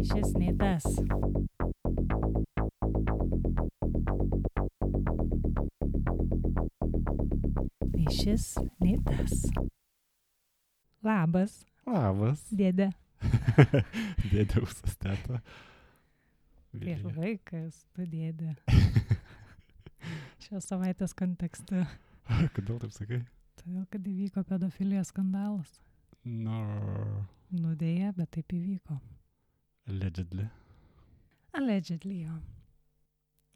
šis nei tas. Nei šis, nei tas. Labas, Labas. dėdė. Dėdė Usas teta. Prieš Vilija. vaikas, tu dėdė. Šios savaitės kontekste. Kodėl taip sakai? Todėl, kad įvyko pedofilijos skandalas. No. Dėja, bet taip įvyko. Allegedly. Allegedly, jo.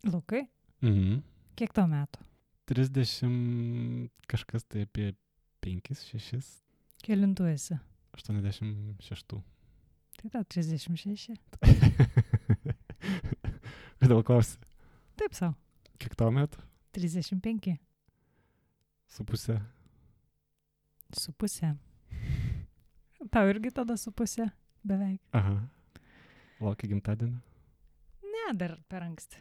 Lukai, Mhm. kiek tau metų? 30 kažkas tai apie 5, 6, Kelintų esi? 86. Tai tau 36. Kodėl klausi? Taip sau. Kiek tau metų? 35. Su pusė. Su pusė. Tau irgi tada su pusė? Beveik. Aha. Laukia gimtadienio? Ne, dar per anksti.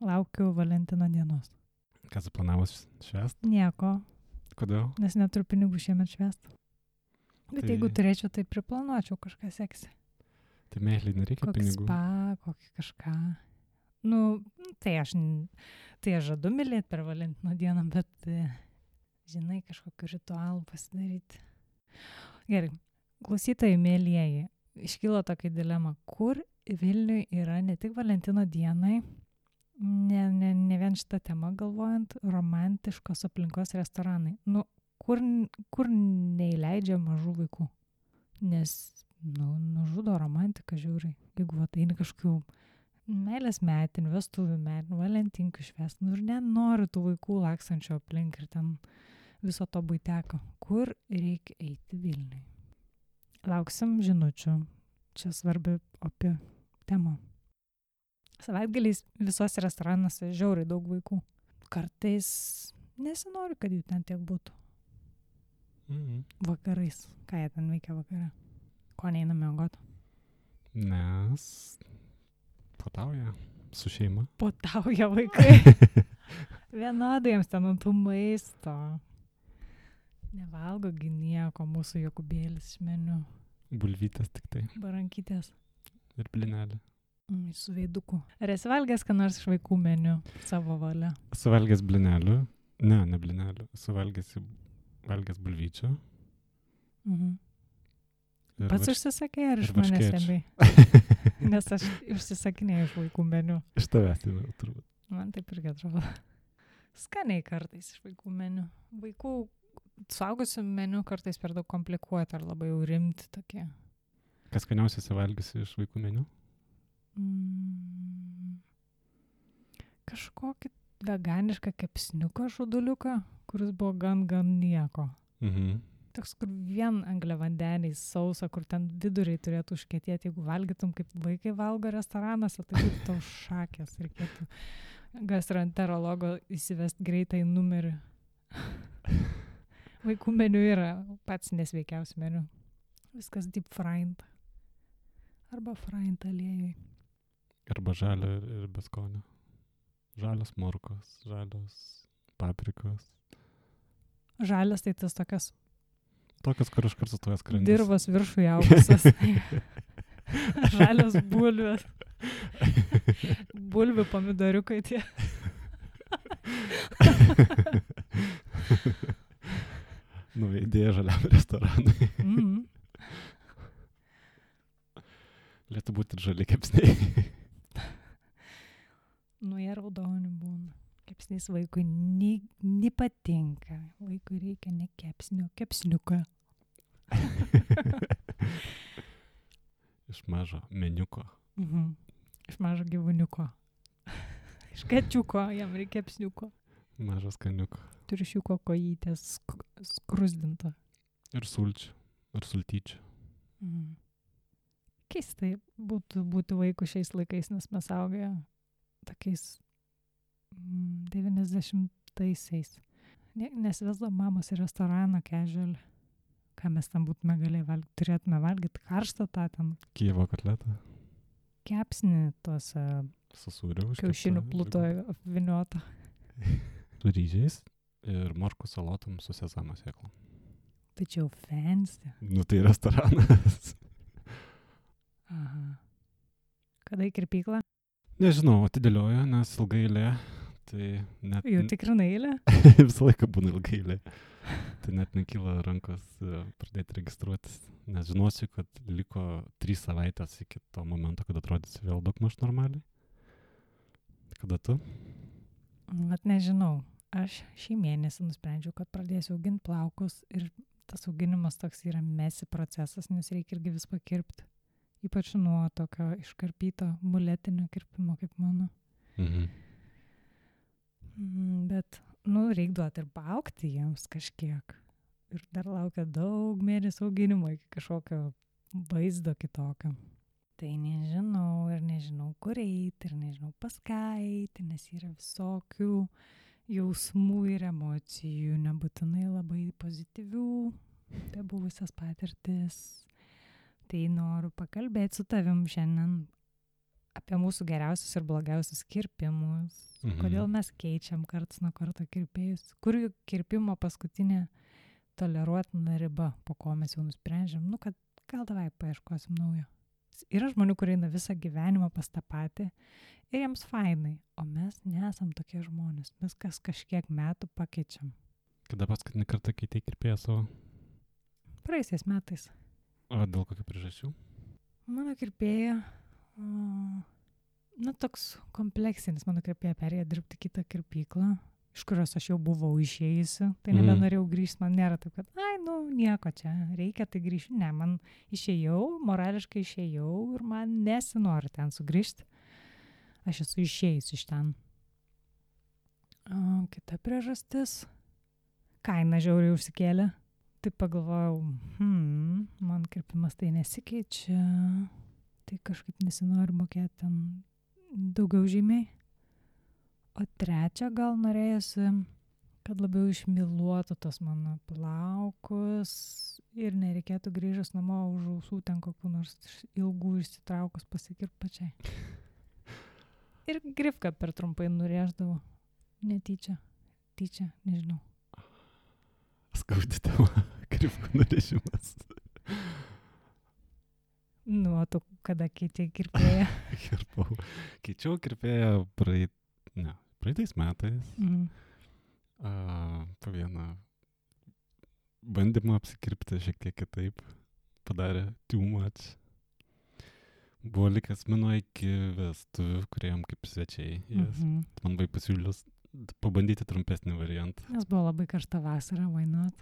Laukiu Valentino dienos. Ką suplanavus švęst? Nieko, Kodėl? nes neturiu pinigų šiemet švęst. Bet Tai- jeigu turėčiau, tai priplanuočiau kažką seksi. Tai meiliai nereikia Kokį pinigų. spa, kokį kažką. Nu, tai aš žadu mylėti per Valentino dieną, bet, žinai, kažkokiu ritualu pasidaryti. Gerai, klausytojai mėlyjeji, iškilo tokia dilema, kur Vilniui yra ne tik Valentino dienai, ne vien šitą temą galvojant, romantiškos aplinkos restoranai. Nu, kur neįleidžia mažų vaikų. Nes, nužudo romantiką žiūrai. Jeigu ateini kažkokių meilės metinių, vestuvių metinių, valentinkių švęst, ir nenori tų vaikų laksančio aplink ir ten viso to buiteko. Kur reikia eiti Vilniui? Lauksim žinučių. Čia svarbi opi tema. Savaitgaliais visose restoranuose žiauriai daug vaikų. Kartais nesinori, kad jų ten tiek būtų. Mhm. Vakarais. Ką jie ten veikia vakare? Ko neina miegoti? Nes patauja su šeima. Potauja vaikai. Vienodai jiems ten ant tų maisto. Nevalgo gi nieko mūsų Jokubėlis iš meniu. Bulvytės tik tai. Barankytės. Ir blinelė. Su veiduku. Ar esi valgęs, ką nors iš vaikų meniu savo valia? Suvalgęs blinelių. Ne blinelių. Valgęs bulvyčių. Mhm. Ir Pats užsisakė ar iš ir manęs varškėčių. stebėjai? Nes aš užsisakinėjau iš vaikų meniu. Iš tavęs, tai turbūt. Man taip irgi atrodo. Skaniai kartais iš vaikų meniu. Vaikų suaugusių meniu kartais per daug komplikuoti ar labai jau rimti tokie. Kas skaniausiai suvalgysi iš vaikų meniu? Kažkokį veganišką kepsniuką žuduliuką, kuris buvo gan nieko. Mhm. Toks, kur vien angliavandeniai sausa, kur ten viduriai turėtų užkietėti, jeigu valgytum kaip vaikai valgo restoranuose, tai būtų tau šakės, reikėtų gastroenterologo įsivest greitai numerį. Vaikų meniu yra pats nesveikiausias meniu. Viskas deep fried. Arba fried aliejui. Arba žalio ir beskonio. Žalios morkos, žalios paprikos. Žalias tai tas tokias Tokios, kur iškart sustoja skrandis. dirvos viršų augusios. Žalios bulvės. Bulvių pomidoriukai tie. Nauja idėja žaliam restoranui. Mhm. Lietu būti ir žali kepsniai. Nu, jie raudoni būna. Kepsnys vaikui nepatinka. Vaikui reikia ne kepsnio, kepsniuką. Iš mažo meniuko. Mhm. Iš mažo gyvūniuko. Iš kačiuko, jam reikia kepsniuko. Mažas kaniuko. Triušiuko kojytės skrusdinto. Ir sulčių. Ir sultyčių. Mhm. Keistai būti vaikų šiais laikais, nes mes augę tokiais 90-aisiais. Nesivesdavo mamos į restoraną casual. Ką mes tam būtume galėję valgyti? Turėtume valgyti karštą tą ten Kijevo kotletą. kepsnį tuose Su sūriu. kiaušinių plutoje apviniuotą. Su ryžiais ir morkų salotom su sezamo sėklom. Tai čia jau fancy. Nu tai restoranas. Aha. Kada į kirpyklą? Nežinau, atidėlioju, nes ilgai eilė. Tai net... Jau tikrinai eilę? Visą laiką būna ilgai eilė. Tai net nekyla rankos pradėti registruotis. Nes žinosiu, kad liko 3 savaitės iki to momento, kad atrodysi vėl daugmaž normaliai. Kada tu? Vat nežinau. Aš šį mėnesį nusprendžiau, kad pradėsiu auginti plaukus ir tas auginimas toks yra mesi procesas, nes reikia irgi vis pakirpti. Ypač nuo tokio iškarpyto muletinio kirpimo kaip mano. Bet, reik duoti ir paaugti jiems kažkiek. Ir dar laukia daug mėnesių auginimo iki kažkokio vaizdo kitokio. Tai nežinau kur eiti ir nežinau pas ką eiti, nes yra visokių jausmų ir emocijų, nebūtinai labai pozityvių, apie buvusias patirtis. Tai noriu pakalbėti su tavim šiandien apie mūsų geriausius ir blogiausius kirpimus. Kodėl mes keičiam karts nuo karto kirpėjus. Kur jų kirpimo paskutinė toleruotina riba, po ko mes jau nusprendžiam, kad gal davai paieškosim naujo. Yra žmonių, kurie eina visą gyvenimą pas tą patį ir jiems fainai, o mes nesam tokie žmonės. Mes kažkiek metų pakeičiam. Kada paskutinį kartą keitei kirpėją savo? Praeisiais metais. O dėl kokių priežasčių? Mano kirpėja, toks kompleksinis, mano kirpėja perėjo dirbti kitą kirpyklą, iš kurios aš jau buvau išėjusi, tai nebenorėjau grįžti, man nėra taip, kad, nieko čia, reikia, tai grįžti. Ne, man išėjau, morališkai išėjau ir man nesinori ten sugrįžti. Aš esu išėjus iš ten. Kita priežastis, kaina žiauriai užsikėlė. Tai pagalvojau, man kirpimas tai nesikeičia, tai kažkaip nesinori mokėti ten daugiau žymiai. O trečia, gal norėjusi, kad labiau išmyluotų tos mano plaukus ir nereikėtų grįžęs namo už ausų ten kokių nors ilgų išsitraukus pasikirpt pačiai. Ir grifką per trumpai nurėždavo. Netyčia, nežinau. Skaudi tema, grifkų nurėžimas. O tu kada keitei kirpėją? Keičiau kirpėją praeitais metais. Po vieną bandymą apsikirpti šiek tiek kitaip. Padarė too much. Buvo likęs mano iki vestuvių, kuriem kaip svečiai. Man buvo pasiūlęs pabandyti trumpesnį variantą. Nes buvo labai karšta vasara, why not?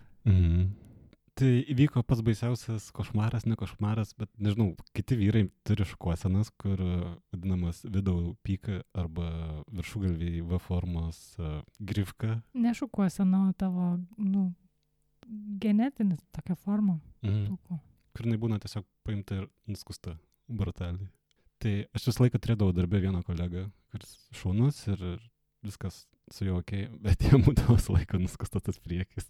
Tai įvyko pats baisiausias košmaras, ne košmaras, bet nežinau, kiti vyrai turi šukuosenas, kur vadinamas vidau pika arba viršugalviai V formos grifka. Ne šukuosena, o tavo, genetinis tokia forma. Kur jinai būna tiesiog paimta ir nuskusta brutaliai. Tai aš visą laiką turėdavau darbę vieną kolegą, kuris šaunus ir viskas su juo okei, bet jam būdavo visą laiką nuskustas tas priekis.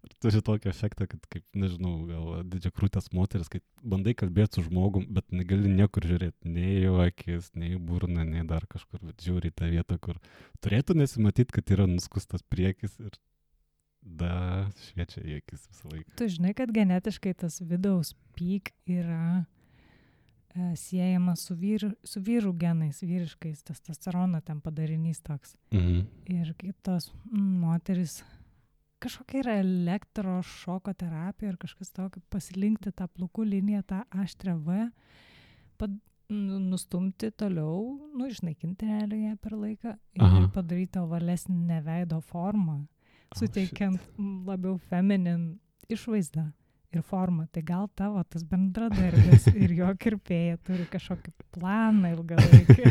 Ir turi tokį efektą, kad kaip, nežinau, gal didžiakrūtės moteris, kai bandai kalbėti su žmogum, bet negali niekur žiūrėti, nei jo akis, nei burną, nei dar kažkur, bet žiūri į tą vietą, kur turėtų nesimatyti, kad yra nuskustas priekis ir šviečia į akis visą laiką. Tu žinai, kad genetiškai tas vidaus peak yra siejamas su vyrų genais, vyriškais, testosterono ten padarinys toks. Ir kaip tos moteris, kažkokia yra elektrošoko terapija ir kažkas tokio, pasilinkti tą plaukų liniją, tą aštrią V, nustumti toliau, išnaikinti realiai ją per laiką ir padaryti ovalesnę veido formą, suteikiant labiau feminin išvaizdą ir formą. Tai gal tavo tas bendradarbis ir jo kirpėja turi kažkokį planą ilgalaikį.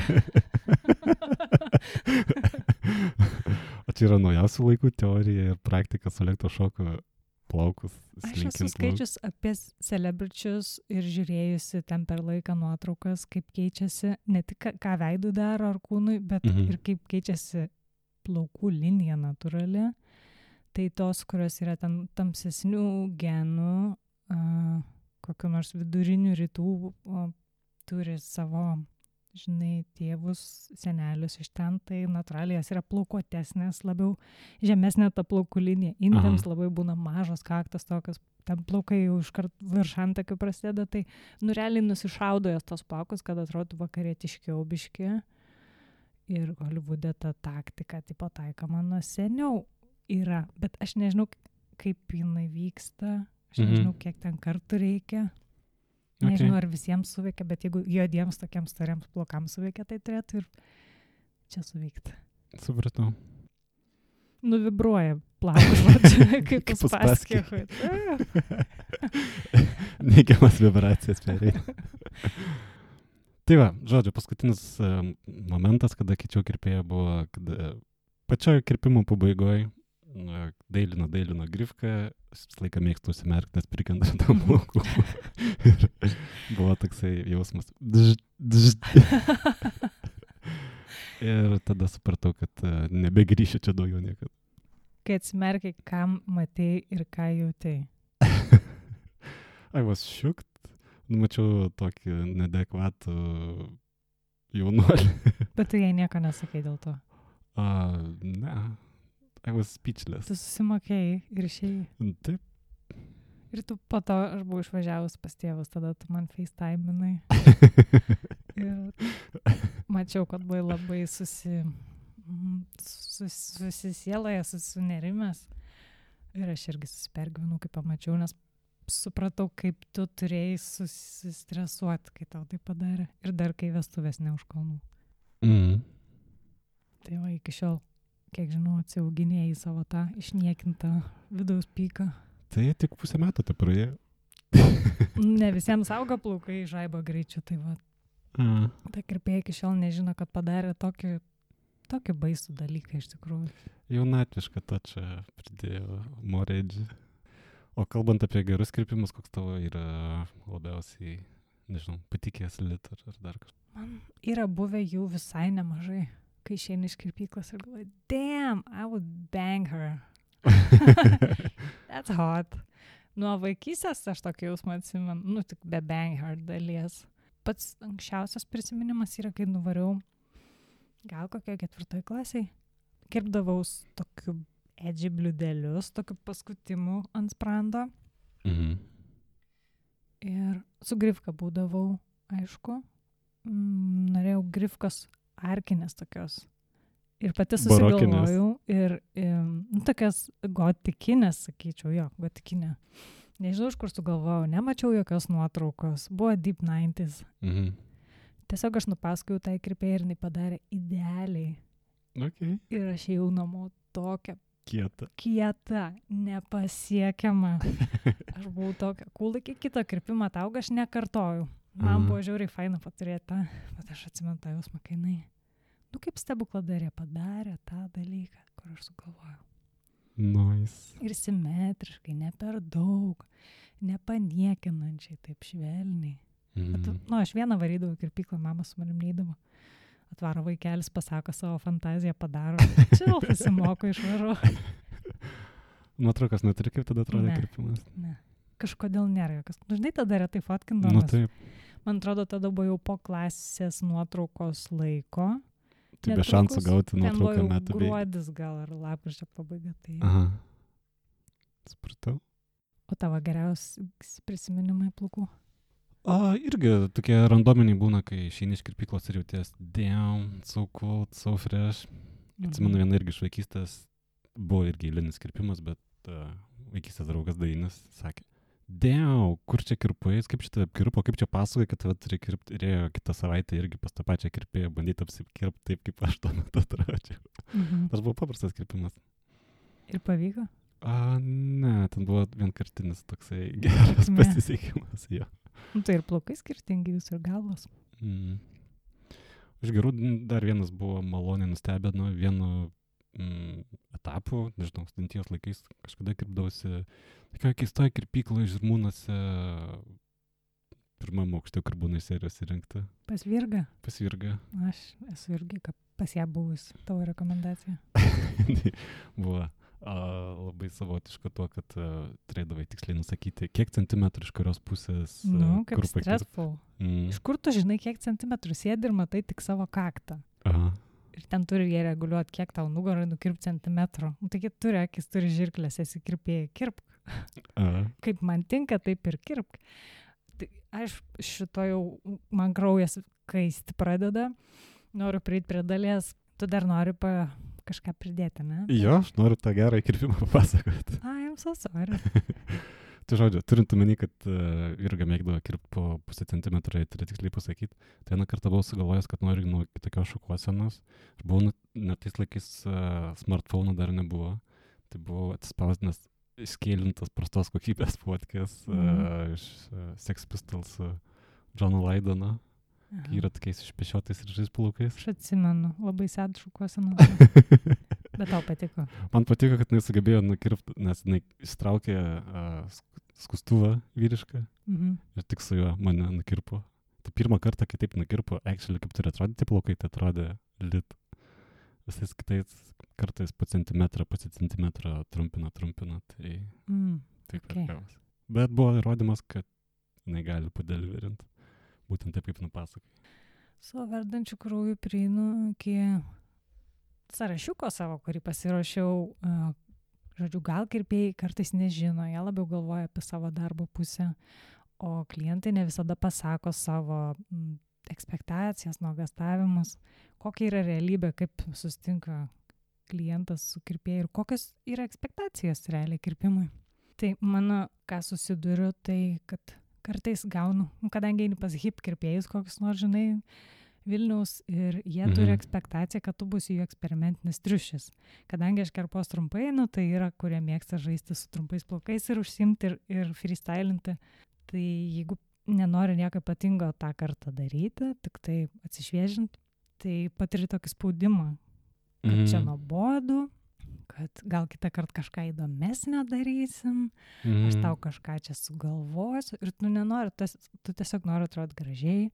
O čia yra naujausių laikų teorija ir praktika su elektrošoko plaukus slinkint. Aš esu skaičius apie celebričius ir žiūrėjusi ten per laiką nuotraukas, kaip keičiasi, ne tik ką veidui daro ar kūnui, bet ir kaip keičiasi plaukų linija natūrali. Tai tos, kurios yra ten tamsesnių genų, kokių nors vidurinių rytų, turi savo žinai, tėvus, senelius iš ten, tai natūraliai jas yra plaukuotesnės, labiau žemesnė ta plaukų linija. Indėms labai būna mažos kaktos tokios, ten plaukai jau iškart virš antakių prasideda, tai realiai nusišaudo jas tos plaukus, kad atrodo vakarietiškiau biški. Ir Holivude ta taktika tipo taikoma nuo seniau yra, bet aš nežinau, kaip jinai vyksta, aš nežinau, kiek ten kartų reikia. Nežinau, ar visiems suveikia, bet jeigu juodiems tokiems storiams plaukams suveikia, tai turėtų ir čia suveikti. Supratau. Nuvibruoja plaukus, kaip Uspaskichui. Neigiamas vibracijas pereina. Tai va, žodžiu, paskutinis momentas, kada keičiau kirpėją, buvo, kada pačioje kirpimo pabaigoje dailino grifką, aš visą laiką mėgstu užsimerkti, nes prikanda tam plaukų. Ir buvo toksai jausmas. Ir tada supratau, kad nebegrįšiu čia daugiau niekada. Kai atsimerkiai, kam matei ir ką jautei? I was shooked. Mačiau tokį neadekvatų jaunuolį. Bet tu jai nieko nesakai dėl to? Ne. I was speechless. Tu susimokėjai ir išėjai? Taip. Ir tu po to, aš buvau išvažiavus pas tėvus, tada tu man FaceTime'inai. Ir mačiau, kad buvai labai susisieloje, susinerimęs. Ir aš irgi susipergyvenau, kai pamačiau, nes supratau, kaip tu turėjai susistresuoti, kai tau tai padarė. Ir dar kai vestuvės ne už kalnų. Tai va, iki šiol, kiek žinau, atsiauginėjai savo tą išniekintą vidaus pyką. Tai tik pusę metų te praėjo. Ne visiems auga plaukai žaibo greičiu, tai va. Ta kirpėja iki šiol nežino, kad padarė tokį baisų dalyką iš tikrųjų. Jaunatvišką tą čia pridėjo moredžį. O kalbant apie gerus kirpimus, koks tavo yra labiausiai, nežinau, patikėjęs litar ar dar kažkas? Man yra buvę jų visai nemažai, kai išeini iš kirpyklos ir galvoju, damn, I would bang her. That's hot. Nuo vaikystės aš tokį jausmą atsimenu, tik be bang her dalies. Pats anksčiausias prisiminimas yra, kai nuvariau, gal kokio 4 klasiai, kirpdavaus tokiu edži bliudelius, tokiu paskutimu ant sprando. Ir su grifka būdavau, aišku. Norėjau grifkos arkinės tokios. Ir pati susigalvojau. Ir tokias gotikinės, sakyčiau, gotikinė. Nežinau, iš kur sugalvojau, nemačiau jokios nuotraukos. Buvo deep 90s. Tiesiog aš nupasakojau tai kirpėjai ir jinai padarė idealiai. Okay. Ir aš ėjau namo tokia kieta, nepasiekiama. Aš buvau tokia cool, iki kito kirpimo tauga aš nekartojau. Man buvo žiauriai faina paturėti tą, bet aš atsimenu tą jausmą, kai jinai, kaip stebukladarė padarė tą dalyką, kur aš sugalvojau. Nice. Ir simetriškai, ne per daug, nepaniekinančiai, taip švelniai. Bet, aš vieną varydavau į kirpyklą, mama su manim neidavo. Atvaro vaikelis, pasako savo fantaziją, padaro. Čia pasimoko išvaru. Nuotraukas neturi, kaip tada atrodė kirpimas? Ne. Kažkodėl nėra jokios. Žinai, tada retai fotkindamas. Taip. Man atrodo, tada buvo jau po klasės nuotraukos laiko. Tai be šansų gauti nuotrauką metų. Ten buvo gruodis gal ar lapkričio pabaiga. Tai... Aha. Supratau. O tavo geriausi prisiminimai plaukų? Irgi tokie randominiai būna, kai išeini iš kirpyklos ir jauties damn, so cool, so fresh. Atsimenu vieną irgi iš vaikystės, buvo irgi eilinis kirpimas, bet vaikystės draugas Dainis sakė, damn, kur čia kirpais, kaip čia tave apkirpo, kaip čia pasakoja, kad tave turi kirpti, ir ėjo kitą savaitę irgi pas tą pačią kirpėją bandyti apsikirpti taip, kaip aš tuo metu atrodžiau. Tas buvo paprastas kirpimas. Ir pavyko? Ne, ten buvo vienkartinis toksai geras pasisekimas, jo. Tai ir plaukai skirtingi jūs ir galvos. Iš gerų dar vienas buvo maloniai nustebino vienu etapu, nežinau, studentijos laikais kažkada kirpdavosi tokioje keistoje kirpykloje Žirmūnuose pirmam aukšte, kur būna serijos įrengta. Pas Virgą? Pas Virgą. Aš esu irgi pas ją buvus, tavo rekomendacija. Buvo. Labai savotiška tuo, kad turėdavai tiksliai nusakyti, kiek centimetrų iš kurios pusės. Nu, kaip kur pakirpt. stressful. Mm. Iš kur tu žinai, kiek centimetrų sėdi ir matai tik savo kaktą? Aha. Ir ten turi jie reguliuoti, kiek tau nugarai nukirpt centimetrų. Nu, taigi turi akis, turi žirklės, esi kirpėjai, kirpk. Kaip man tinka, taip ir kirpk. Tai aš šito jau, man kraujas kaisti pradeda, noriu prieiti prie dalies, tu dar nori kažką pridėti, ne? Jo, aš noriu tą gerą įkirpimą papasakoti. I'm so sorry. Tai žodžiu, turint omeny, kad Jurga mėgdavo kirpti po pusę centimetro, tai tiksliai pasakyti, tai vieną kartą buvau sugalvojęs, kad noriu nuo kitokios šukuosenos. Aš buvau, net tais laikais smartphone dar nebuvo, tai buvau atspausdinęs skėlintas prastos kokybės fotkės iš Sex Pistols Johno Lydono, kai yra tokiais išpešiotais ir žais plaukais. Aš atsimenu, labai sėd šukuoseną. Bet tau patiko. Man patiko, kad jis sugebėjo nukirpti, nes jis įstraukė skustuvą vyrišką ir tik su juo mane nukirpo. Tai pirmą kartą, kai taip nukirpo, actually, kaip turi atrodyti plaukai, tai atrodė lit. Visais kitais kartais po centimetrą trumpina, tai taip okay. ir gavos. Bet buvo įrodymas, kad jinai gali padeliverinti. Būtent taip, kaip nupasakai. Su verdančiu krauju prieinu iki sąrašiuko savo, kurį pasiruošiau. Žodžiu, gal kirpėjai kartais nežino, jie labiau galvoja apie savo darbo pusę, o klientai ne visada pasako savo ekspektacijas, nuogąstavimus, kokia yra realybė, kaip susitinka klientas su kirpėjai ir kokios yra ekspektacijos realiai kirpimui. Tai mano, ką susiduriu, tai kad kartais gaunu, kadangi eini pas hip kirpėjus, kokius nors, žinai, Vilniaus ir jie turi ekspektaciją, kad tu būsi jų eksperimentinis triušis. Kadangi aš kirpos trumpai, tai yra, kurie mėgsta žaisti su trumpais plaukais ir užsimti ir freestylinti. Tai jeigu nenori nieko ypatingo tą kartą daryti, tik tai atsišviežinti, tai patiri tokį spaudimą, kad čia nuobodu, kad gal kitą kartą kažką įdomesnio darysim, aš tau kažką čia sugalvosiu ir tu nenori, tu tiesiog nori atrodyti gražiai,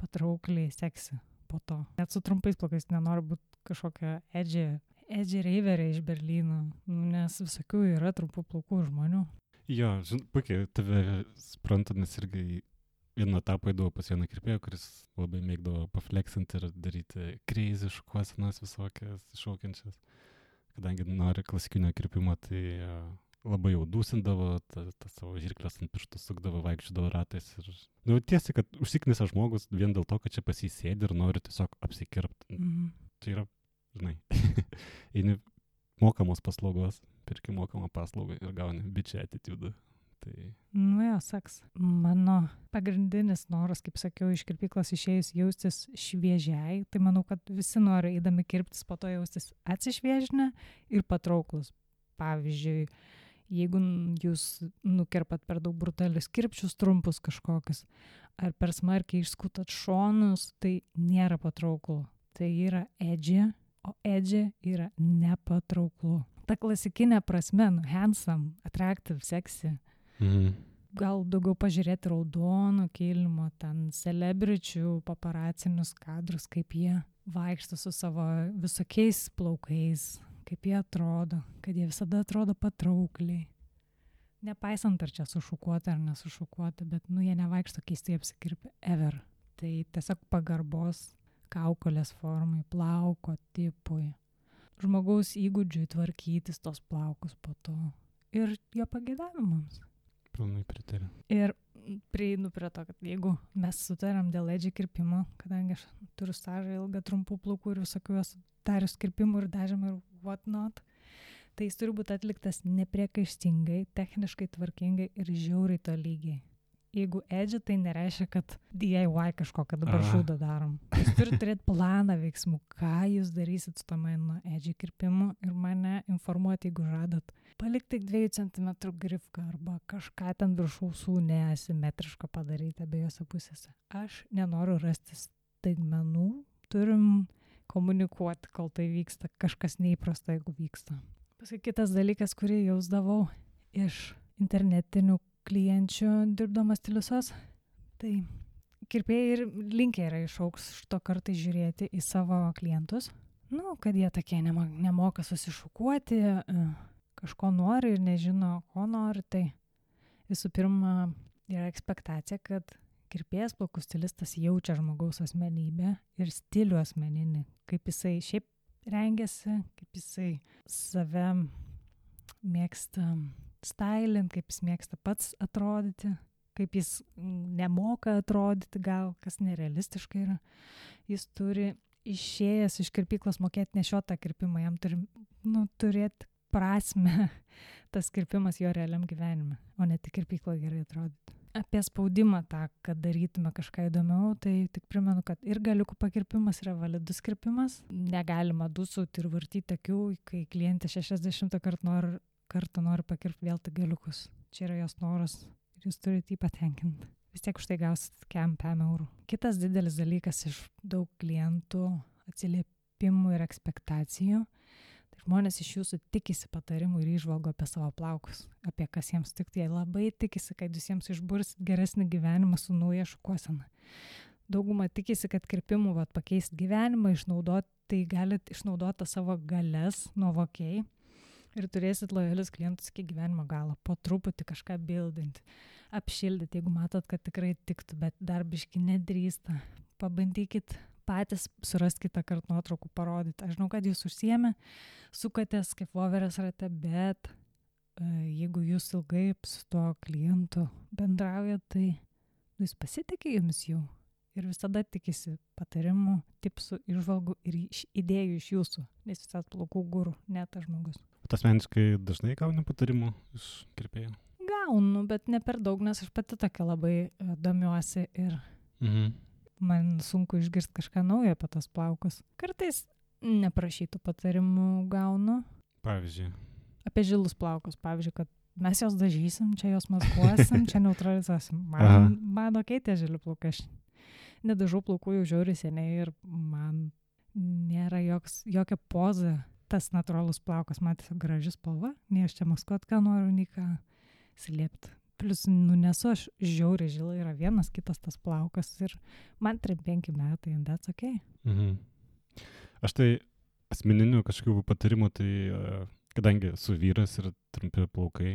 patraukliai, seksi po to. Net su trumpais plaukais nenori būti kažkokia edgy reiverė iš Berlyno, nes visokių yra trumpų plaukų žmonių. Jo, puikiai, tave supranta, nes irgi vieną etapą eidavo pas vieną kirpėją, kuris labai mėgdavo pafleksinti ir daryti crazy šukuosenas visokias iššaukiančias. Kadangi nori klasikinio kirpimo, tai labai jau dūsindavo, tą savo žirklės ant pirštų sukdavo, vaikščiodavo ratais. Ir tiesiai, kad užsiknisa žmogus vien dėl to, kad čia pas jį sėdi ir nori tiesiog apsikirpti. Tai yra, žinai, eini mokamos paslaugos, pirki mokamą paslaugą ir gauni bičią attitude. Tai... Nu jo, saks. Mano pagrindinis noras, kaip sakiau, iš kirpyklos išėjus jaustis šviežiai, tai manau, kad visi nori eidami kirptis, po to jaustis atsišviežinę ir patrauklus. Pavyzdžiui, jeigu jūs nukirpat per daug brutalius kirpčius trumpus kažkokius, ar per smarkiai išskutat šonus, tai nėra patrauklu. Tai yra edgy, o edgy yra nepatrauklu. Ta klasikinė prasme, handsome, attractive, sexy. Gal daugiau pažiūrėti raudono kilimo, ten celebričių paparacinius kadrus, kaip jie vaikšto su savo visokiais plaukais, kaip jie atrodo, kad jie visada atrodo patraukliai. Nepaisant, ar čia sušukuota ar nesušukuota, bet jie nevaikšto keistai apsikirpę ever. Tai tiesiog pagarbos kaukolės formai, plauko tipui, žmogaus įgūdžiui tvarkytis tos plaukus po to ir jo pageidavimams. Pilnai pritariu. Ir prieinu prie to, kad jeigu mes sutariam dėl edgy kirpimo, kadangi aš turiu stažą ilgą trumpų plaukų ir visokių esu darius kirpimų ir dažymų ir what not, tai jis turi būti atliktas nepriekaištingai, techniškai tvarkingai ir žiauriai tolygiai. Jeigu edgy, tai nereiškia, kad DIY kažkokią dabar šūdą darom. Jūs turite turėti planą veiksmų, ką jūs darysit su to mano edgy kirpimu ir mane informuoti, jeigu žadat palikti 2 cm grifką arba kažką ten virš ausų neasimetriško padaryti abiejose pusėse. Aš nenoriu rasti staigmenų, turim komunikuoti, kol tai vyksta, kažkas neįprasta, jeigu vyksta. Paskui kitas dalykas, kurį jausdavau iš internetinių klienčių dirbdamas stiliusos, tai kirpėjai ir linkę yra iš aukšto kartais žiūrėti į savo klientus, kad jie tokie nemoka susišukuoti, kažko nori ir nežino, ko nori, tai visų pirma yra ekspektacija, kad kirpėjas, plaukų stilistas jaučia žmogaus asmenybę ir stilių asmeninį, kaip jisai šiaip rengiasi, kaip jisai save mėgsta stylint, kaip jis mėgsta pats atrodyti, kaip jis nemoka atrodyti, gal kas nerealistiškai yra. Jis turi išėjęs iš kirpyklos mokėti nešiotą kirpimą, jam turi turėti prasme tas kirpimas jo realiam gyvenime, o ne tik kirpykloje gerai atrodyti. Apie spaudimą tą, kad darytume kažką įdomiau, tai tik primenu, kad ir galiukų pakirpimas yra validus kirpimas. Negalima dusauti ir vartyti akių, kai klientė 60 kartą nori pakirpti vėl tik galiukus. Čia yra jos noras ir jūs turite jį patenkinti. Vis tiek už tai gausit kem 5 eurų. Kitas didelis dalykas iš daug klientų atsiliepimų ir ekspektacijų. Tai žmonės iš jūsų tikisi patarimų ir įžvalgų apie savo plaukus, apie kas jiems tikti. Jie labai tikisi, kad jūs jiems išbursit geresnį gyvenimą su nauja šukuosena. Dauguma tikisi, kad kirpimų pakeisti gyvenimą, tai galite išnaudoti savo galias nuovokiai ir turėsit lojalius klientus iki gyvenimo galo. Po truputį kažką bildinti, apšildyti, jeigu matot, kad tikrai tiktų, bet dar biški nedrįsta. Pabandykit patys surast kitą kartą nuotraukų parodyti. Aš žinau, kad jūs užsiėmė, sukatės kaip voverės rate, bet jeigu jūs ilgai su tuo klientu bendraujat, tai jis pasitikė jumis jau ir visada tikisi patarimų, tipsų, įžvalgų ir idėjų iš jūsų, nes jūs esat plaukų guru, ne tas žmogus. O asmeniškai dažnai gauni patarimų iš kirpėjų? Gaunu, bet ne per daug, nes aš pati tokia labai domiuosi ir man sunku išgirsti kažką naujo apie tos plaukus. Kartais neprašytų patarimų gaunu. Pavyzdžiui? Apie žilus plaukus, pavyzdžiui, kad mes jos dažysim, čia jos maskuosim, čia neutralizuosim. Man okei tie žili plaukai. Aš nedažau plaukų jau žiauriai seniai ir man nėra jokia poza tas natūralus plaukas. Man tiesiog graži spalva, nei aš čia maskuot ką noriu, nei ką slėpti. Plius, nesu aš žiauriai žilai, yra vienas kitas tas plaukas ir man 3-5 metai, and that's okay. Aš tai asmeninių kažkokių patarimų, tai kadangi su vyras ir trumpi plaukai,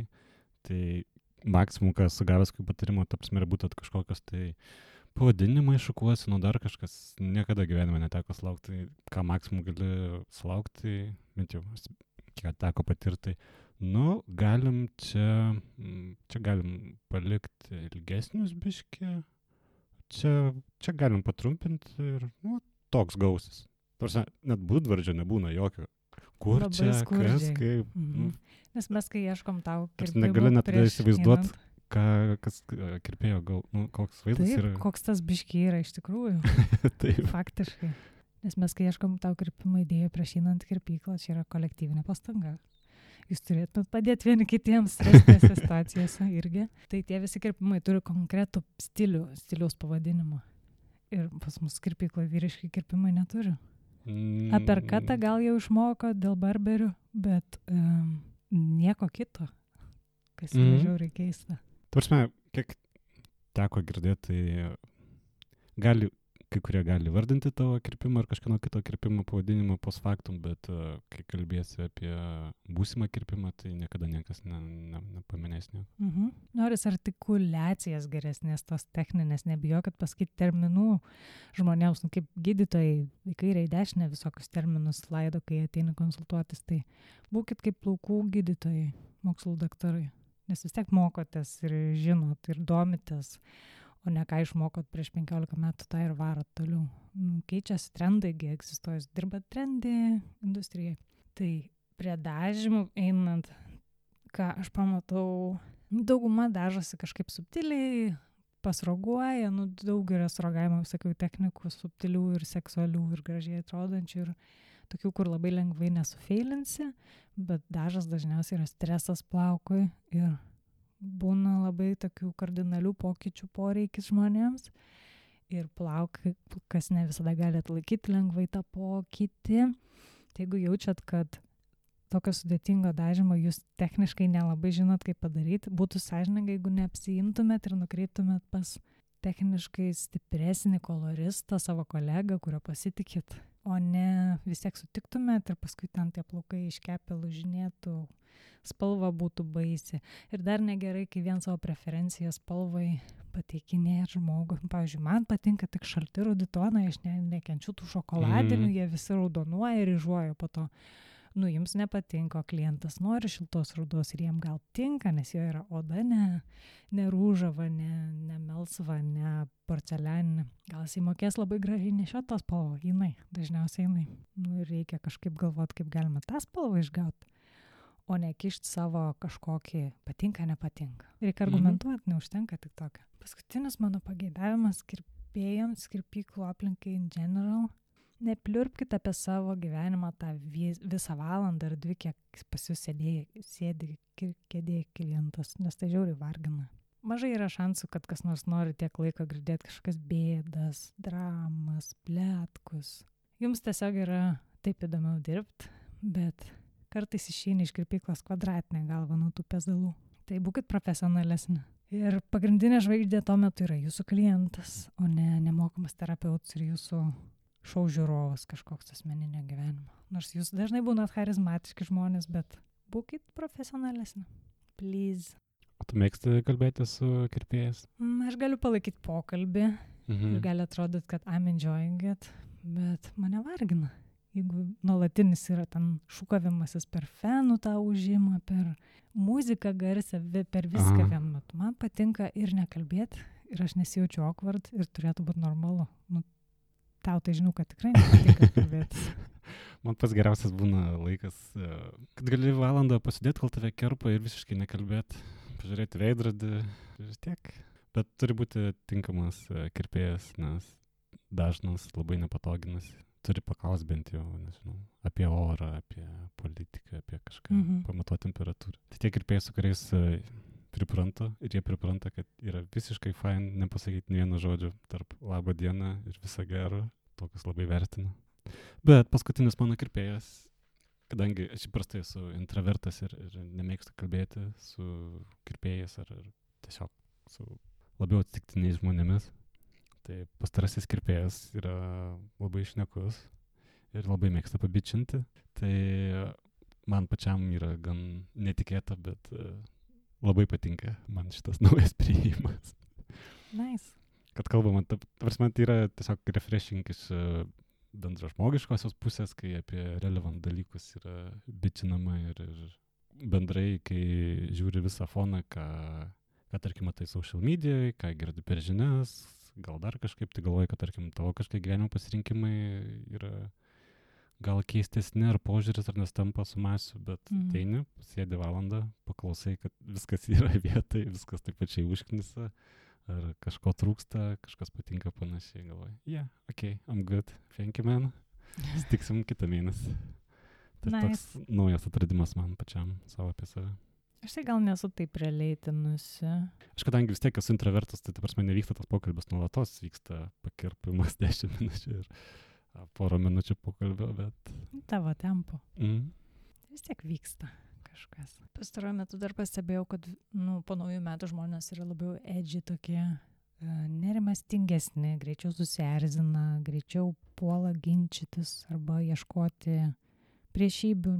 tai maksimum, ką sugavęs kokių patarimų, ta prasme, būtų kažkokios tai pavadinimai šukuosinų, dar kažkas, niekada gyvenime neteko sulaukti, ką maksimum gali sulaukti, bent jau, kiek teko patirti. Galim čia galim palikti ilgesnius biškį, čia galim patrumpinti ir, toks gausis. Tarsi, net būdvardžio nebūna jokio. Kur labai čia, skurdžiai. kas, kaip. Nes mes, kai ieškom tau kirpimų, negali net įsivaizduoti, kas kirpėjo, koks vaizdas yra. Taip, koks tas biškį yra iš tikrųjų. Taip. Faktiškai. Nes mes, kai ieškom tau kirpimų idėjų prieš einant kirpyklą, čia yra kolektyvinė pastanga. Jūs turėtumėt padėti vieni kitiems stresinėse situacijose irgi. Tai tie visi kirpimai turi konkretų stiliaus pavadinimą. Ir pas mus kirpykloje vyriški kirpimai neturi. Aperkatą gal jau išmoko dėl barberių, bet nieko kito, kas yra žiauriai keista. Tvarsime, kiek teko girdėti, tai kai kurie gali vardinti tavo kirpimą ar kažkieno kito kirpimo pavadinimą post factum, bet kai kalbėsi apie būsimą kirpimą, tai niekada niekas nepaminės nieko. Noris artikuliacijas geresnės, tos techninės, nebijokit pasakyti terminų žmonėms, kaip gydytojai, į kairę į dešinę visokius terminus laido, kai ateina konsultuotis, tai būkit kaip plaukų gydytojai, mokslų daktarai, nes vis tiek mokotės ir žinot ir domitės, o ne ką išmokot prieš 15 metų, tą ir varot toliau. Keičiasi trendai, egzistuoja, dirba trendy industrijai. Tai prie dažymų einant, ką aš pamatau, dauguma dažosi kažkaip subtiliai, pasroguoja, daug yra srogavimo visokių technikų, subtilių ir seksualių ir gražiai atrodančių ir tokių, kur labai lengvai nesufeilinsi, bet dažas dažniausiai yra stresas plaukui ir būna labai tokių kardinalių pokyčių poreikis žmonėms ir plaukas ne visada gali atlaikyti lengvai tą pokytį. Tai jeigu jaučiat, kad tokio sudėtingo dažymo jūs techniškai nelabai žinot, kaip padaryti, būtų sąžininga, jeigu neapsiimtumėt ir nukreiptumėt pas techniškai stipresnį koloristą, savo kolegą, kurio pasitikit, o ne vis tiek sutiktumėt ir paskui ten tie plaukai iškepę lūžinėtų, spalva būtų baisi. Ir dar negerai, kai vien savo preferenciją spalvai pateikinėja žmogui. Pavyzdžiui, man patinka tik šalti rudi tonai, aš nekenčiu tų šokoladinių, jie visi raudonuoja ir ryžuoja po to. Jums nepatinka, klientas nori šiltos rudos ir jiem gal tinka, nes jo yra oda ne rūžava, ne melsva, ne porcelianinė. Gal jis įmokės labai gražiai nešiot tą spalvą, dažniausiai jinai. Ir reikia kažkaip galvoti, kaip galima tą spalvą išgauti, o ne kišti savo kažkokį patinka, nepatinka. Reikia argumentuoti, neužtenka tik tokio. Paskutinis mano pageidavimas kirpėjams, kirpyklų aplinkai in general. Nepliurpkite apie savo gyvenimą tą visą valandą ar 2, kiek pas jūs sėdi kėdėje klientas, nes tai žiauriai vargina. Mažai yra šansų, kad kas nors nori tiek laiko girdėti kažkokias bėdas, dramas, pletkus. Jums tiesiog yra taip įdomiau dirbti, bet kartais išeini iš kirpyklos kvadratinę galvą nuo tų pezalų. Tai būkit profesionalesni. Ir pagrindinė žvaigždė tuo metu yra jūsų klientas, o ne nemokamas terapeutas ir jūsų šou žiūrovas kažkoks asmeninio gyvenimo. Nors jūs dažnai būnat charizmatiški žmonės, bet būkit profesionalesni. Please. O tu mėgsti kalbėti su kirpėjais? Aš galiu palaikyti pokalbį ir gali atrodyti, kad I'm enjoying it, bet mane vargina. Jeigu nuolatinis yra ten šūkavimasis per fenų tą užimą, per muziką garsę, per viską vienu metu. Man patinka ir nekalbėti, ir aš nesijaučiu awkward ir turėtų būti normalu. Tau tai žinau, kad tikrai nepatinka kalbėtis. Man pats geriausias būna laikas, kad gali valandą pasidėti, kol tave kerpa ir visiškai nekalbėti, pažiūrėti veidrodį ir tiek. Bet turi būti tinkamas kirpėjas, nes dažnas labai nepatoginas. Turi paklausti bent jau, nežinau, apie orą, apie politiką, apie kažką, pamatuoti temperatūrą. Tai tie kirpėjai, su kuriais pripranta ir jie pripranta, kad yra visiškai fine nepasakyti nė vieno žodžio tarp labą dieną ir visą gerą, tokius labai vertinu. Bet paskutinis mano kirpėjas, kadangi aš įprastai esu intravertas ir nemėgstu kalbėti su kirpėjais ar tiesiog su labiau atsitiktiniais žmonėmis, tai pastarasis kirpėjas yra labai šnekus ir labai mėgsta pabičinti. Tai man pačiam yra gan netikėta, bet labai patinka man šitas naujas priėjimas. Nice. Kad kalbama, tai yra tiesiog refreshing iš bendražmogiškosios pusės, kai apie relevant dalykus yra bičinama ir bendrai, kai žiūri visą foną, ką tarkim matai social medijoje, ką girdi per žinias, gal dar kažkaip, tai galvoji, kad tarkim tavo kažkaip gyvenimo pasirinkimai yra gal keistesni ar požiūris ar nestampa su masiu, bet ateini, sėdi valandą, paklausai, kad viskas yra vietoj, viskas taip pačiai užknisa, ar kažko trūksta, kažkas patinka panašiai, galvoji, okay, I'm good, thank you man, sutiksim kitą mėnesį. Tai toks naujas atradimas man pačiam, savo apie save. Aš tai gal nesu taip realeitinusi. Aš kadangi vis tiek esu introvertas, tai prasme nevyksta tas pokalbis nuolatos, vyksta pakirpimas 10 minučių ir porą minučių pokalbio, bet... Tavo tempo. Vis tiek vyksta kažkas. Pastaruoju metu dar pastebėjau, kad po naujų metų žmonės yra labiau edgy tokie, nerimastingesni, greičiau susierzina, greičiau puola ginčytis arba ieškoti priešybių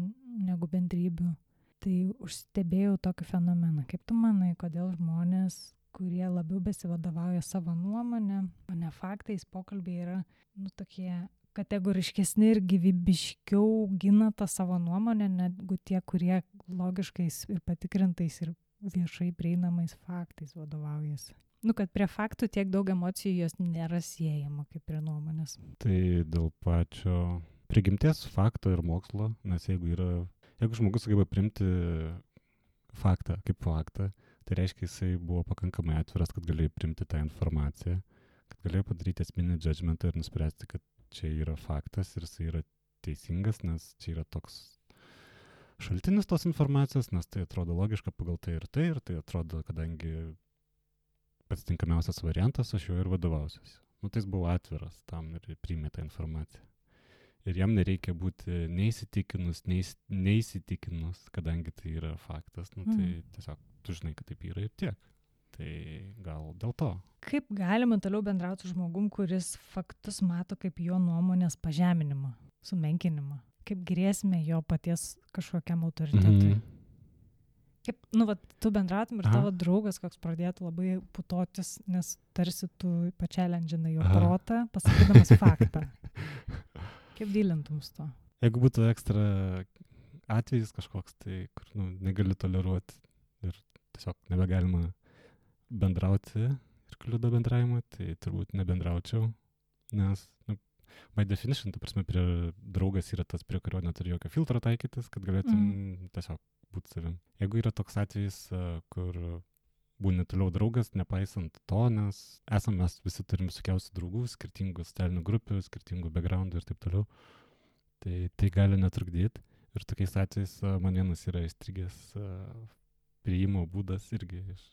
negu bendrybių. Tai užstebėjau tokį fenomeną. Kaip tu manai, kodėl žmonės, kurie labiau besivadovauja savo nuomonę, o ne faktais, pokalbiai yra tokie kategoriškesni ir gyvybiškiau gina tą savo nuomonę, negu tie, kurie logiškais ir patikrintais ir viešai prieinamais faktais vadovaujasi. Kad prie faktų tiek daug emocijų jos nėra siejama kaip prie nuomonės. Tai dėl pačio prigimties fakto ir mokslo, nes jeigu žmogus sugeba priimti faktą kaip faktą, tai reiškia, jisai buvo pakankamai atviras, kad galėjo priimti tą informaciją, kad galėjo padaryti esminį judgmentą ir nuspręsti, kad čia yra faktas ir jisai yra teisingas, nes čia yra toks šaltinis tos informacijos, nes tai atrodo logiška pagal tai, ir tai atrodo, kadangi pats tinkamiausias variantas, aš jo ir vadovausiuosi. Tai jis buvo atviras tam ir priėmė tą informaciją. Ir jam nereikia būti neįsitikinus, kadangi tai yra faktas, tai tiesiog tu žinai, kad taip yra ir tiek. Tai gal dėl to. Kaip galima toliau bendrauti su žmogum, kuris faktus mato kaip jo nuomonės pažeminimą, sumenkinimą? Kaip grėsmė jo paties kažkokiam autoritetui? Kaip, tu bendrautum ir tavo draugas koks pradėtų labai putotis, nes tarsi tu pačialendžinai jo protą, pasakydamas faktą. Kaip dylintum su to? Jeigu būtų ekstra atvejis kažkoks, tai kur negali toleruoti ir tiesiog nebegalima bendrauti ir kliudo bendravimą, tai turbūt nebendraučiau, nes by definition, ta prasme, draugas yra tas, prie kurio neturi jokio filtro taikytis, kad galėtum tiesiog būti savim. Jeigu yra toks atvejis, kur būni toliau draugas, nepaisant to, nes mes visi turim visokiausių draugų, skirtingų socialinių grupių, skirtingų backgroundų ir taip toliau, tai gali netrukdyti. Ir tokiais atvejais man vienas yra įstrigęs priėjimo būdas irgi iš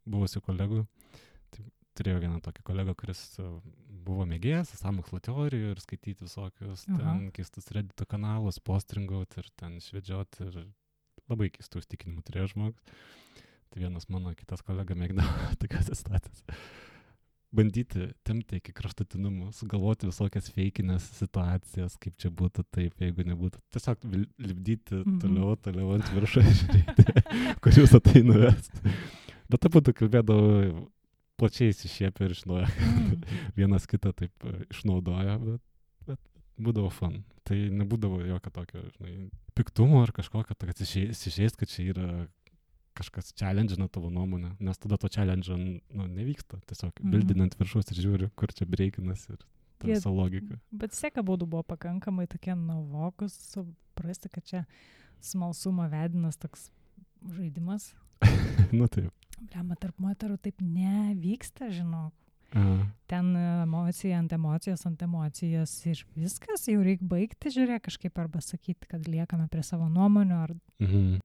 buvusių kolegų. Tai turėjau vieną tokį kolegą, kuris buvo mėgėjas sąmokslo teorijų ir skaityti visokius ten keistus Reddito kanalus, postringauti ir ten švedžioti ir labai keistų įstikinimų turėjo žmogus. Tai vienas mano kitas kolega mėgdavo tokias situacijas. Bandyti tempti iki kraštutinumų, sugalvoti visokias feikinės situacijas, kaip čia būtų taip, jeigu nebūtų. Tiesiog lipdyti toliau ant viršų ir žiūrėti, kur jūs tai nuvest. Bet taip būtų kalbėdavo plačiai įsišiepę ir žinojo, vienas kitą taip išnaudojo, bet būdavo fun. Tai nebūdavo jokio tokio, piktumo ar kažkokio, kad įsižeist, kad čia yra kažkas challenge'ina tavo nuomonę, nes tada to challenge nevyksta. Tiesiog bildinant viršus ir žiūri, kur čia breikinas ir ta visa logika. Bet seka būdų buvo pakankamai tokie nuovokus, suprasti, kad čia smalsumo vedinas toks žaidimas. Taip. Bliamba, tarp moterų taip nevyksta, žinok. Ten emocija ant emocijos ir viskas, jau reikia baigti, žiūrėk, kažkaip arba sakyti, kad liekame prie savo nuomonių, ar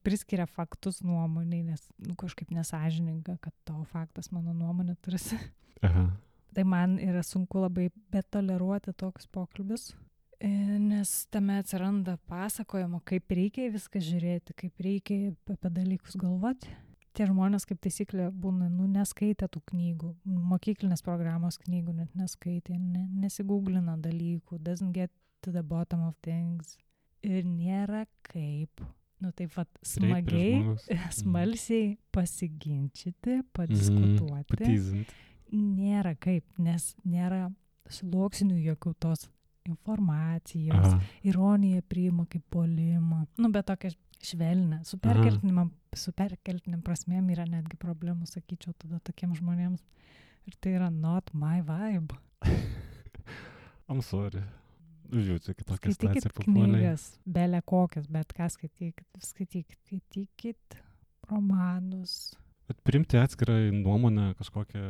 priskiria faktus nuomoniai, nes kažkaip nesąžininga, kad tavo faktas mano nuomonė tarsi. Tai man yra sunku labai betoleruoti tokius pokalbius, nes tame atsiranda pasakojimo, kaip reikia viską žiūrėti, kaip reikia apie dalykus galvoti. Tie žmonės, kaip taisyklė, būna, neskaitė tų knygų, mokyklinės programos knygų net neskaitė, nesigūglina dalykų, doesn't get to the bottom of things. Ir nėra kaip, taip smagiai, smalsiai pasiginčyti, padiskutuoti. Patyzinti. Nėra kaip, nes nėra sluoksnių jokių tos informacijos, ironija priima kaip puolimą. Bet tokia švelnė, su perkeltiniam prasmėm yra netgi problemų, sakyčiau, tada tokiem žmonėms. Ir tai yra not my vibe. I'm sorry. Žiūrėkit, kitokia situacija papuoliai. Skaitykit knygas, belė kokias, bet ką skaitykit romanus. Bet priimti atskirą nuomonę kažkokią,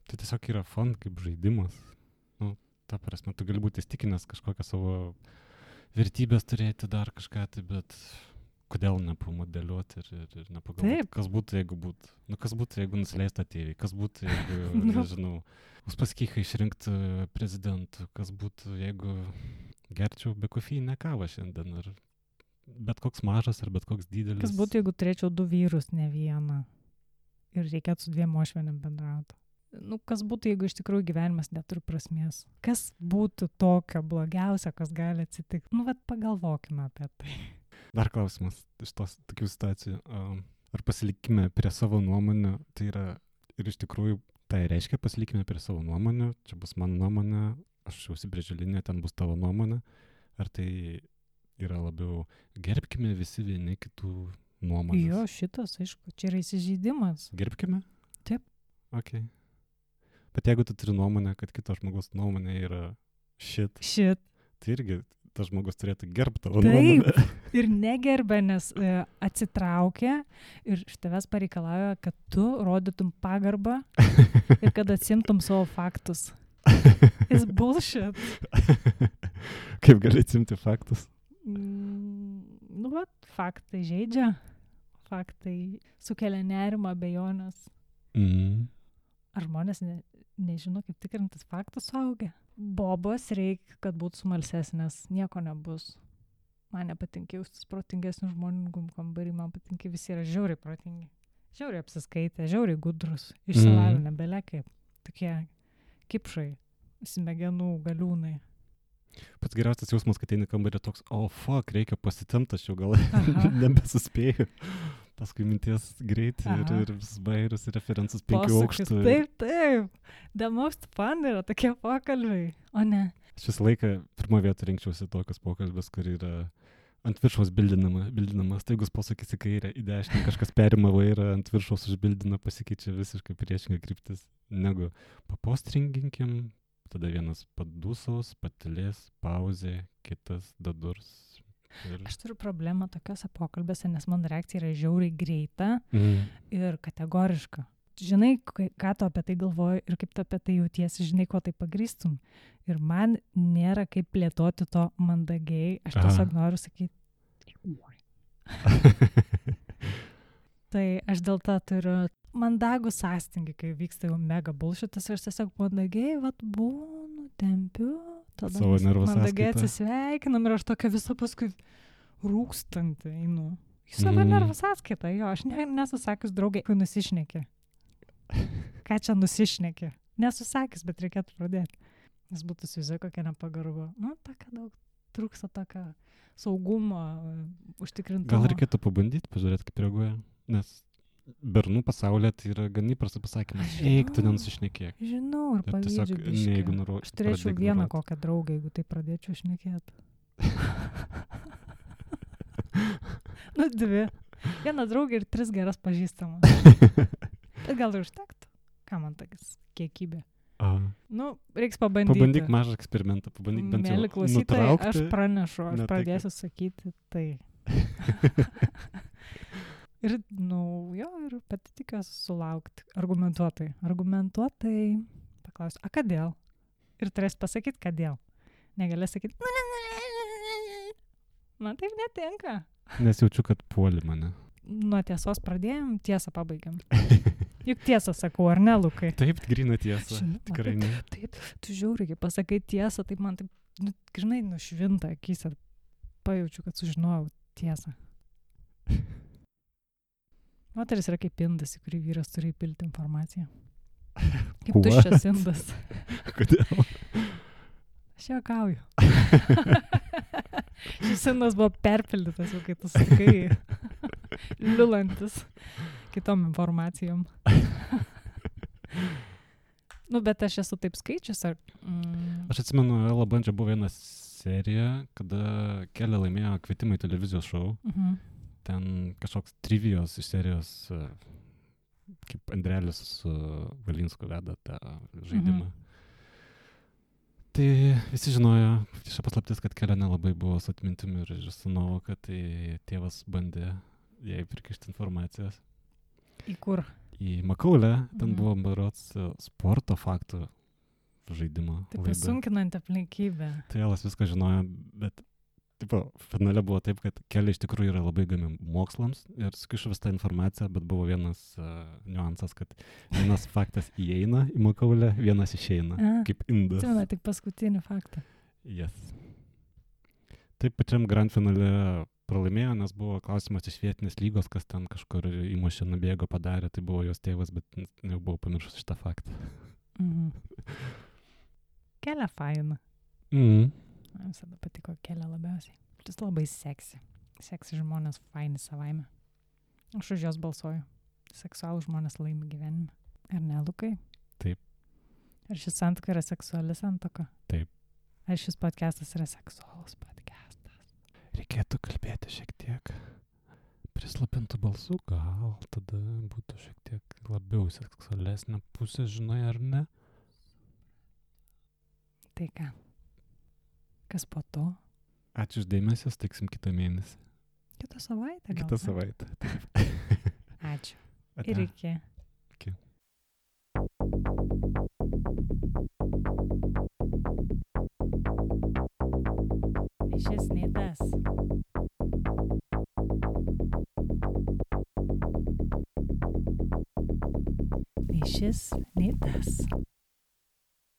tai tiesiog yra fun kaip žaidimas. Ta prasme, tu gali būti įstikinęs kažkokią savo vertybės turėti dar kažką, tai bet kodėl nepamodeliuoti ir nepagalvoti, kas būtų, jeigu būtų. Kas būtų, jeigu nusileistų ateiviai, kas būtų, jeigu, nežinau, Uspaskichą išrinkti prezidentu, kas būtų, jeigu gerčiau be kofeinę kavą šiandien, ar bet koks mažas, ar bet koks didelis. Kas būtų, jeigu turėčiau 2 vyrus, ne vieną, ir reikėtų su 2 uošvienėm bendrauti. Kas būtų, jeigu iš tikrųjų gyvenimas neturi prasmės? Kas būtų tokio blogiausio, kas gali atsitikti? Pagalvokime apie tai. Dar klausimas iš tos tokių situacijų. Ar pasilikime prie savo nuomonių, tai yra ir iš tikrųjų tai reiškia pasilikime prie savo nuomonių, čia bus mano nuomonė, aš užsibrėžiu liniją, ten bus tavo nuomonė, ar tai yra labiau gerbkime visi vieni kitų nuomonės? Jo, šitas, aišku, čia yra įsižeidimas. Gerbkime? Taip. Ok. Bet jeigu tu turi nuomonę, kad kito žmogaus nuomonė yra shit, tai irgi tas žmogus turėtų gerbti tavo nuomonę. Taip, ir negerbė, nes atsitraukia ir iš tavęs pareikalauja, kad tu rodytum pagarbą ir kad atsimtum savo faktus. It's bullshit. Kaip gali atsimti faktus? Faktai žaidžia, faktai sukelia nerimą, abejonės. Ar žmonės nežino, kaip tikrintis faktus suaugę? Bobos reikia, kad būtų smalsesnės, nieko nebus. Man nepatinka jaustis protingesnių žmonių kambarį, man patinka visi yra žiauriai protingi. Žiauriai apsiskaitę, žiauriai gudrus, išsilavinę, belia kaip. Tokie kipšai, smegenų galiūnai. Pats geriausias jausmas, kad eini kambarį toks, fuck, reikia pasitemti, aš jau gal nebesuspėjau. Paskui minties greitai ir vis bairius referensus 5 aukštų. Taip. The most fun yra tokie pokalbiai, o ne. Aš visą laiką pirmą vietą rinkčiausi tokius pokalbis, kur yra ant viršaus bildinamas, taigus posakis į kairę, į dešinę, kažkas perima vairą, ant viršaus užbildina, pasikeičia visiškai priešinga kryptis, negu papostringinkim, tada vienas padūsaus, patilės, pauzė, kitas dadurs. Aš turiu problemą tokiuose pokalbėse, nes mano reakcija yra žiauriai greita ir kategoriška. Žinai, ką tu apie tai galvoji ir kaip tu apie tai jautiesi, žinai, ko tai pagrįstum. Ir man nėra kaip plėtoti to mandagiai, aš tiesiog noriu sakyti. Tai aš dėl to turiu mandagų sąstingį, kai vyksta jau mega bullshitas, aš tiesiog mandagiai, būnu, tempiu, tada mandagiai atsisveikinam ir aš tokia visą paskui rūkstantį einu. Į savo nervų sąskaitą, jo, aš nesusakius draugai, kai nusišnekė. Ką čia nusišnekė? Nesusakys, bet reikėtų pradėti. Nes būtų suizai kokia nepagarba. Tokia daug trūksta tokio saugumo, užtikrintumo. Gal reikėtų pabandyti, pažiūrėti, kaip reaguoja, nes bernų pasaulyje tai yra gan įprastas pasakymas. Eik, tu nenusišnekėk. Žinau, ir pavydžiu biškį. Aš turėčiau vieną kokią draugą, jeigu tai pradėčiau šnekėti. 2. Viena draugė ir 3 geras pažįstamas. Bet gal ir užtektų. Ką man tokias kiekybė? Reiks pabandyti. Pabandyk mažą eksperimentą, pabandyk bent jau nutraukti. Mėly klausytojai, aš pranešu, aš pradėsiu sakyti tai. Ir, ir pati tikiuosi sulaukti argumentuotai. Paklausiu, kodėl? Ir turės pasakyti, kodėl. Negalės sakyti, man taip netinka. Nes jaučiu, kad puoli mane. Nuo tiesos pradėjom, tiesą pabaigiam. Juk tiesą sakau, ar ne, Lukai? Taip, gryna tiesa. Tikrai ne. Taip, tu žiūri, kai pasakai tiesą, taip man taip, žinai, nušvinta akise. Pajaučiu, kad sužinojau tiesą. Moteris yra kaip indas, į kurį vyras turi įpilti informaciją. Kaip tuščias indas. Kodėl? Aš juokauju. Šis indas buvo perpildytas, jau kai tu sakai, liulantis kitom informacijom. Bet aš esu taip skaičius. Aš atsimenu, Ela Bandžia buvo viena serija, kada Kelė laimėjo kvietimą į televizijos šou. Ten kažkoks trivijos iš serijos, kaip Andrelis su Valinsku veda tą žaidimą. Tai visi žinojo, šia paslaptis, kad Kelė nelabai buvo su atmintimi ir su nuovoka, tai tėvas bandė jai prikišti informacijos. Į kur? Į Makaulę, ten buvo berods sporto faktų žaidimo. Taip pasunkinant aplinkybę. Tai Elas viską žinojo, bet finale buvo taip, kad Kelė iš tikrųjų yra labai įdomi mokslams ir sukišo visą informaciją, bet buvo vienas niuansas, kad vienas faktas įeina į Makaulę, vienas išeina, kaip indas. Atsimena tik paskutinį faktą. Yes. Taip pačiam grand finale pralaimėjo, nes buvo klausimas iš vietinės lygos, kas ten kažkur įmušė, nubėgo, padarė, tai buvo jos tėvas, bet jau buvo pamiršus šitą faktą. Kelė faina. Man visada patiko Kelė labiausiai. Jis labai seksi. Seksi žmonės faini savaime. Aš už jos balsuoju. Seksualų žmonės laimi gyvenime. Ar ne, Lukai? Taip. Ar šis santuoka yra seksuali santuoka? Taip. Ar šis podcastas yra seksualus podcastas? Reikėtų kalbėti šiek tiek prislapintų balsų, gal tada būtų šiek tiek labiau seksualesnė pusė, žinai, ar ne? Tai ką? Kas po to? Ačiū už dėmesį, sutiksim kitą mėnesį. Kitą savaitę gal? Kitą savaitę. Ačiū. Ir iki. Iki. Šis nei tas. Nei šis, nei tas.